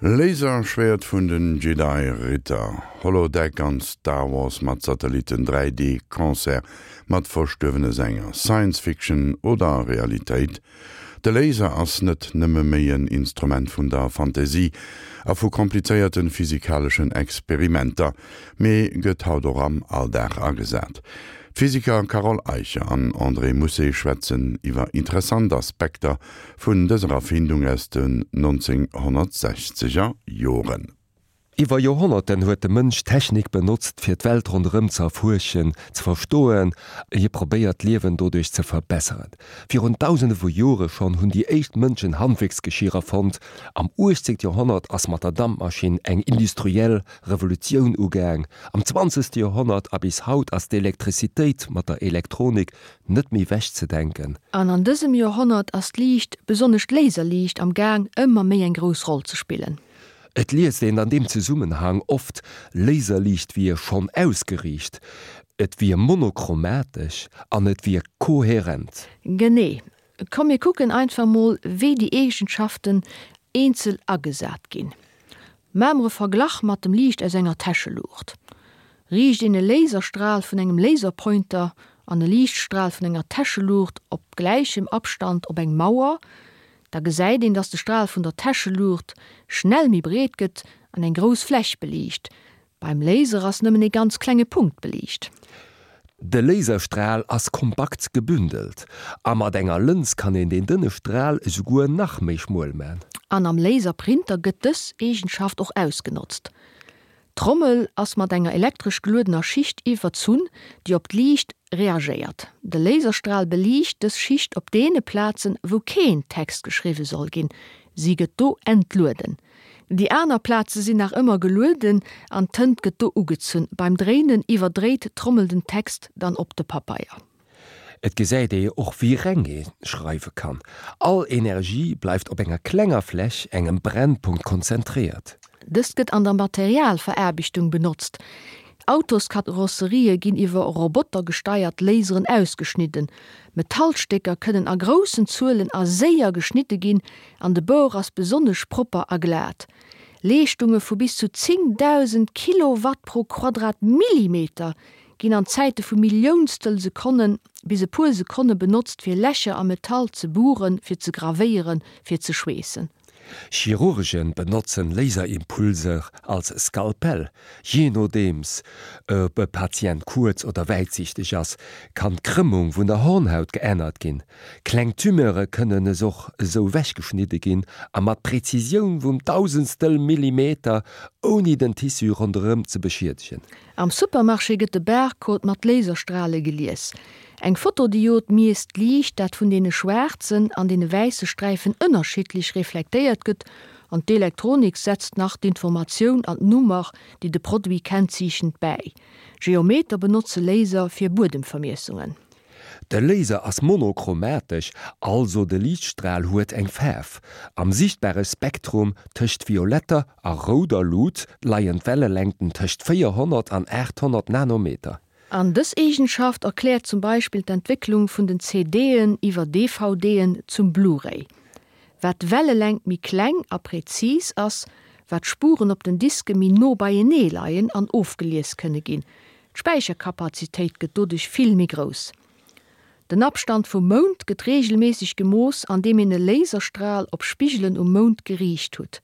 Laserschwäert vun den Jedi Ritter, Holodeck an Star Wars mat Satellitten, 3D Concert mat verstuerwene Sänger, Science Fiction oder Realitéit? De Laser ass net nëmme méi en Instrument vun der Fantasie a vu komplizéierten physikaleschen Experimenter, mee gëtt haut och am Alldag agesat. D'Physiker Carole Eicher an André Mousset schwätzen iwwer interessant Aspekter vun dëser Erfindung aus den 1960er Joren. Iwwer Joerhonnerten huet de Mënsch Technik benotzt, fir d'Welt ronderëm ze erfuerschen, ze verstoen. Hie probéiert d'Liewen doduerch ze verbesseren. Virun Dausende vu Jore schonn hunn déi éischt Mënschen Handwierksgeschier erfonnt. Am 18. Joerhonnert ass mat der Dampmaschinn eng industriell Revolutioun ugaang. Am 20. Joerhonnert a bis haut ass d'Elektrizitéit mat der Elektronik net méi wech ze denken. An an dësem Joerhonnert ass d'Liicht, besonnesch d'Laserliicht, am Gaang ëmmer méi eng grouss Roll ze spillen. Et liest een an deem Zesummenhang oft, Laserliicht wier schonn ausgeriicht, et wier monochromatesch an et wier koherent. Genee. Komm mir kucken einfach mol wéi déi Eegenschaften eenzel agesat ginn. Maache mer e Verglach mat dem Liicht aus enger Täscheluucht. Riicht een e Laserstral vun engem Laserpointer an e Liichtstral vun enger Täscheluucht op gläichem Abstand op eng Mauer, da gesäit een, dass de Stral vun der Täscheluucht schnell méi breet gëtt an eng grouss Fläch beliicht. Beim Laser ass nëmmen ee ganz klenge Punkt beliicht. De Laserstral ass kompakt gebündelt, a mat enger Lëns kann een deen dënne Stral esouguer nach méi schmuel man. An am Laserprinter gëtt dës Eegenschaft och ausgenotzt. D'Trommel ass mat enger elektresch geluedener Schicht iwwerzunn, déi op d'Liicht reagéiert. De Laserstral beliicht dës Schicht op deene Plazen, wou keen Text geschriwwe soll ginn, si gëtt do entlueden. Déi aner Plaze sinn nach ëmmer gelueden an d'Tënt gëtt do ugezunn. Beim Dréinen iwwerdréit d'Trommel den Text dann op de Papeier. Et gesäit ee och wéi reng ee schreiwe kann. All Energie bleift op enger klenger Fläch, engem Brennpunkt, konzentréiert. Dëst gëtt an der Materialveraarbechtung benotzt. Autoskarosserië ginn iwwer Roboter gesteiert Laseren ausgeschnidden. Metallstécker kënnen a groussen Zuelen a séier geschnidde ginn an de Bord ass besonnesch propper a glat. Leeschtunge vu bis zu 10.000 Kilowatt pro Quadratmillimeter ginn an Zäite vu Milliounstel Sekonnen bis e puer Sekonne benotzt fir Lächer am Metall ze buren, fir ze gravéieren, fir ze schweessen. Chirurgen benotzen Laserimpulser als Skalpell. Jee nodeems ob e Patient kuerz oder wäitsiichteg ass, kann d'Krëmmung vun der Hornhaut geännert ginn. Kleng Tumeure kënnen es och esou wechgeschnidde ginn a mat Präzisioun vum Dausendstel Millimeter, ouni den Tissu ronderëm ze beschiedegen. Am Supermarché gëtt de Barcode mat Laserstrale gelies. Eng Fotodiod miesst d'Liicht, dat vun deene schwaarzen an deene wäisse Sträifen ënnerschiddlech reflektéiert gëtt, an d'Elektronik setzt nach d'Informatioun an d'Nummer, déi de Produit kennzeechent, bäi. Geometer benotze Laser fir Buedemvermiessungen. De Laser ass monochromatesch, also de Liichtstral huet eng Faarf. Am sichtbare Spektrum tëscht violetter a rouder Lut leien d'Wellelängten tëscht 400 an 800 Nanometer. An dës Eegenschaft erkläert zum Beispill d'Entwécklung vun den CD'en iwwer DVD'en zum Blu-ray. Wat d'Wellelängt méi kleng a präzis ass, wat d'Spuren op den Diske méi no beienee leien an ofgelies kënne ginn. D'Späicherkapazitéit gëtt doduerch vill méi grouss. Den Abstand vum Mound gëtt reegelméisseg gemooss andeem een e Laserstral op Spigelen um Mound geriicht hutt.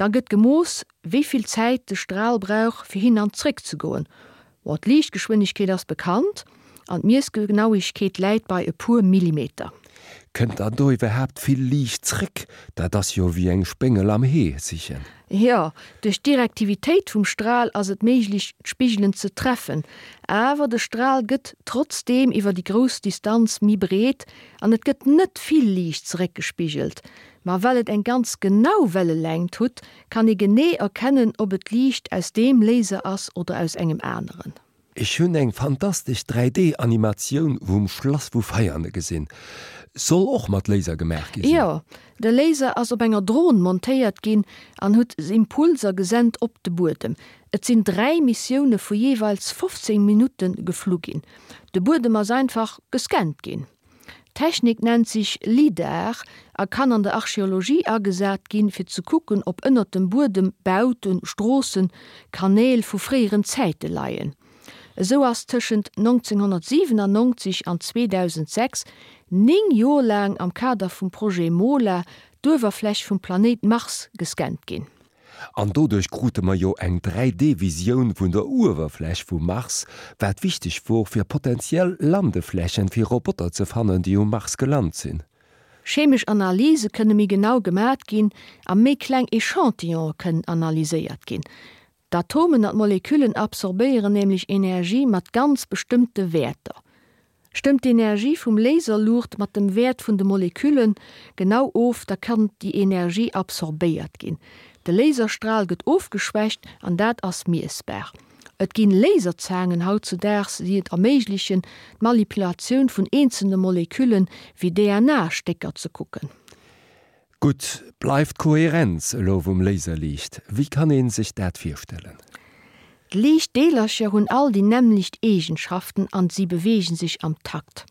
Da gëtt gemooss, wéi vill Zäit de Stral brauch fir hin an zréck ze goen. Bon, d'Liichtgeschwindegkeet ass bekannt an d'Miessgenauegkeet läit bei e puer Millimeter. Kënnt dann do iwwerhaapt vill Liicht zréck? Dat ass jo wéi eng Spéngel am Hee sichen. Jo, duerch d'Direktivitéit vum Stral ass et méiglech d'Spigelen ze treffen, awer de Stral gëtt trotzdeem iwwer déi grouss Distanz méi breet an et gëtt net vill Liicht zeréckgespigelt. Ma well et eng ganz genau Wellelängt hutt, kann ee genee erkennen ob et Liicht aus deem Laser ass oder aus engem aneren. Ech hunn eng fantastesch 3D Animatioun vum Schlass vu Veiane gesinn. Soll och mat Laser gemaach gi sinn. Jo, de Laser ass op enger Dron montéiert ginn an hutt Impulser gesent op de Buedem. Et sinn 3 Missioune vu jeeweils 15 Minutte geflu ginn. De Buedem ass einfach gescannt ginn. D'Technik nennt sech LIDAR a kann an der Archeologie agesat ginn, fir ze kucken, ob ënnert dem Buedem Bauten, Stroossen, Kanäl vu fréieren Zäite leien. Esou ass tëschent 1997 an 2006 néng Joer laang am Kader vum Projet MOLA d'Uewerfläch vum Planéit Mars gescannt ginn. An doduerch krute mer jo eng 3D-Visioun vun der Uewerfläch vum Mars, wat wichteg wor fir potentiell Landeflächen fir Roboter ze fannen, déi um Mars gelant sinn. Chemesch Analyse kënne méi genau gemat ginn a méi kleng Echantillone kënnen analyséiert ginn. D'Atomen an d'Moleküllen absorbéieren nämlech Energie mat ganz bestëmmte Wäerter. Stëmmt d'Energie vum Laserluucht mat dem Wäert vun de Molekülle genau of, da kann déi Energie absorbéiert ginn. De Laserstral gëtt ofgeschwächt an dat ass miessbar. Et ginn Laserzaangen hautzudaags, déi et erméiglechen, d'Manipulatioun vun eenzelne Moleküllen, wéi DNA-Stécker, ze kucken. Gutt, bleift d'Kohärenz elo vum Laserliicht. Wéi kann een sech dat virstellen? D'Liichtdeelercher hunn all déi nämmlecht Eegenschaften an si beweegen sech am Takt.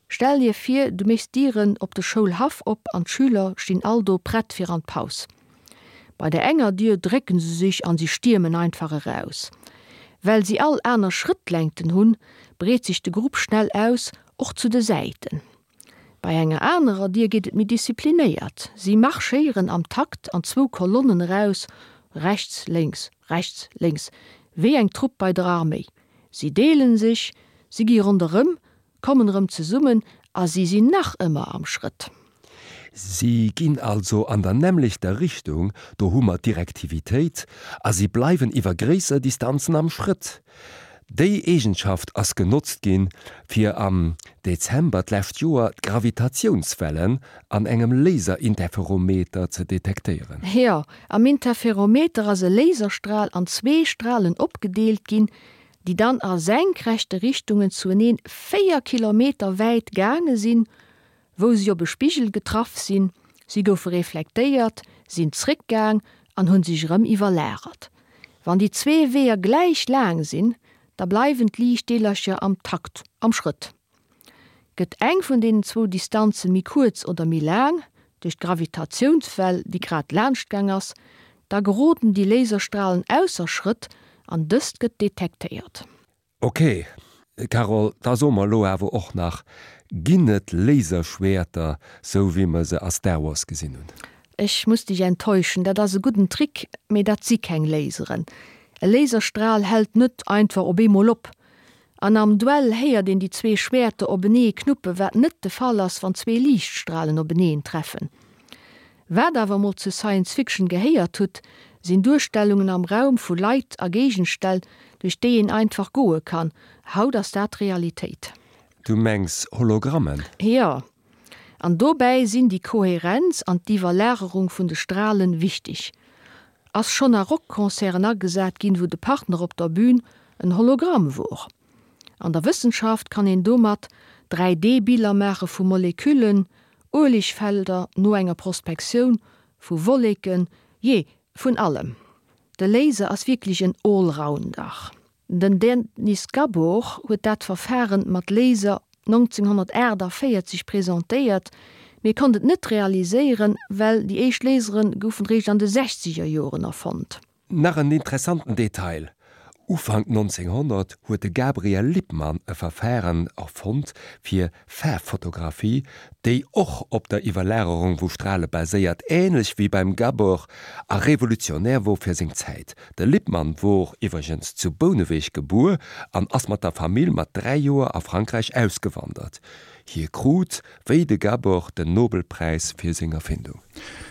Stell dir vir, du méchs d'Dieren op de Schoulhaff op an d'Schüler stinn all do prett fir an d'Paus. Bei der enger Dier drécken se sech an si stiermen einfach eraus. Well si all aner Schrëttlängten hunn, breet sech de Grupp schnell aus, och zu de Säiten. Bei enger anerer Dier geet et méi disziplinéiert, si marschéieren am Takt an zwou Kolonnen eraus, rechts, lénks, rechts, lénks, wéi eng Trupp bei der Arméi. Si deelen sech, si gi ronderëm, kommen erëm zesummen a si sinn nach ëmmer am Schrëtt. Si ginn also an der nämmlechter Richtung, do hu mer d'Direktivitéit, a si bleiwen iwwer gréisser Distanzen am Schrëtt. Déi Eegenschaft ass genotzt ginn, fir am Dezember d'lescht Joer d'Gravitatiounswellen an engem Laserinterferometer ze detektéieren. Jo, am Interferometer ass e Laserstral an zwee Stralen opgedeelt ginn, déi dann a senkrechte Richtungen zueneen 4 Kilometer wäit gaange sinn, wou si op e Spigel getraff sinn, si goufe reflektéiert, sinn zréckgaang an hunn sech erëm iwwerlagert. Wann déi zwee Weeër gläich laang sinn, da bleiwen d'Liichtdeelercher am Takt, am Schrëtt. Gëtt eng vun deenen zwou Distanze méi kuerz oder méi laang, duerch d'Gravitatiounswell, déi grad laanschtgaang ass, da geroden déi Laserstralen ausser Schrëtt an dëst gëtt detektéiert. Ok, Carole, da so mer elo awer och nach, ginn et Laserschwäerter, sou wéi mer se a Star Wars gesinn hunn? Ech muss dech enttäuschen, dat ass e gudden Trick, mee dat si keng Laseren. E Laserstral hält net einfach op eemol op. An am Duell héiert een déi zwee Schwäerter openee knuppen, wat net de Fall ass, wann zwee Liichtstralen openeen treffen. Wat awer mol zu Science Fiction gehéiert hutt, sinn Duerstellungen am Raum vu Leit a Géigenställ, duerch déi een einfach goe kann. Haut ass dat Realitéit. Du mengs Hologrammen? Jo. An dobäi sinn déi Koherenz an d'Iwwerlagerung vun de Stralen wichteg. Ass schonn a Rockconcerten agesat ginn, wou de Partner op der Bühn en Hologramm wor. An der Wëssenschaft kann een domat 3D-Biller maache vu Moleküllen, Uelegfelder no enger Prospektioun, vu Wolleken, jee, vun allem. De Laser ass wierklech en Allrounder. Den Dennis Gabor huet dat Verfaren mat Laser 1948 presentéiert, mee konnt et net realiséieren, well déi éischt Lasere goufen réischt an de sechzeger Joren erfonnt. Nach en interessanten Detail, Ufank 1900 huet de Gabriel Lippmann e Verfaren erfonnt fir Faarffotografie, déi och op der Iwwerlagerung vu Strale baséiert, änlech wéi beim Gabor, a revolutionär wor fir seng Zäit. De Lippmann wor iwwregens zu Bouneweg gebuer an ass mat der Famill mat 3 Joer a Frankräich ausgewandert. Hie krut, wéi de Gabor, den Nobelpräis fir seng Erfindung.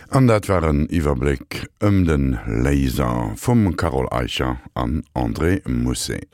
An dat war en Iwwerbléck ëm de Laser vum Carole Eicher an André Mousset.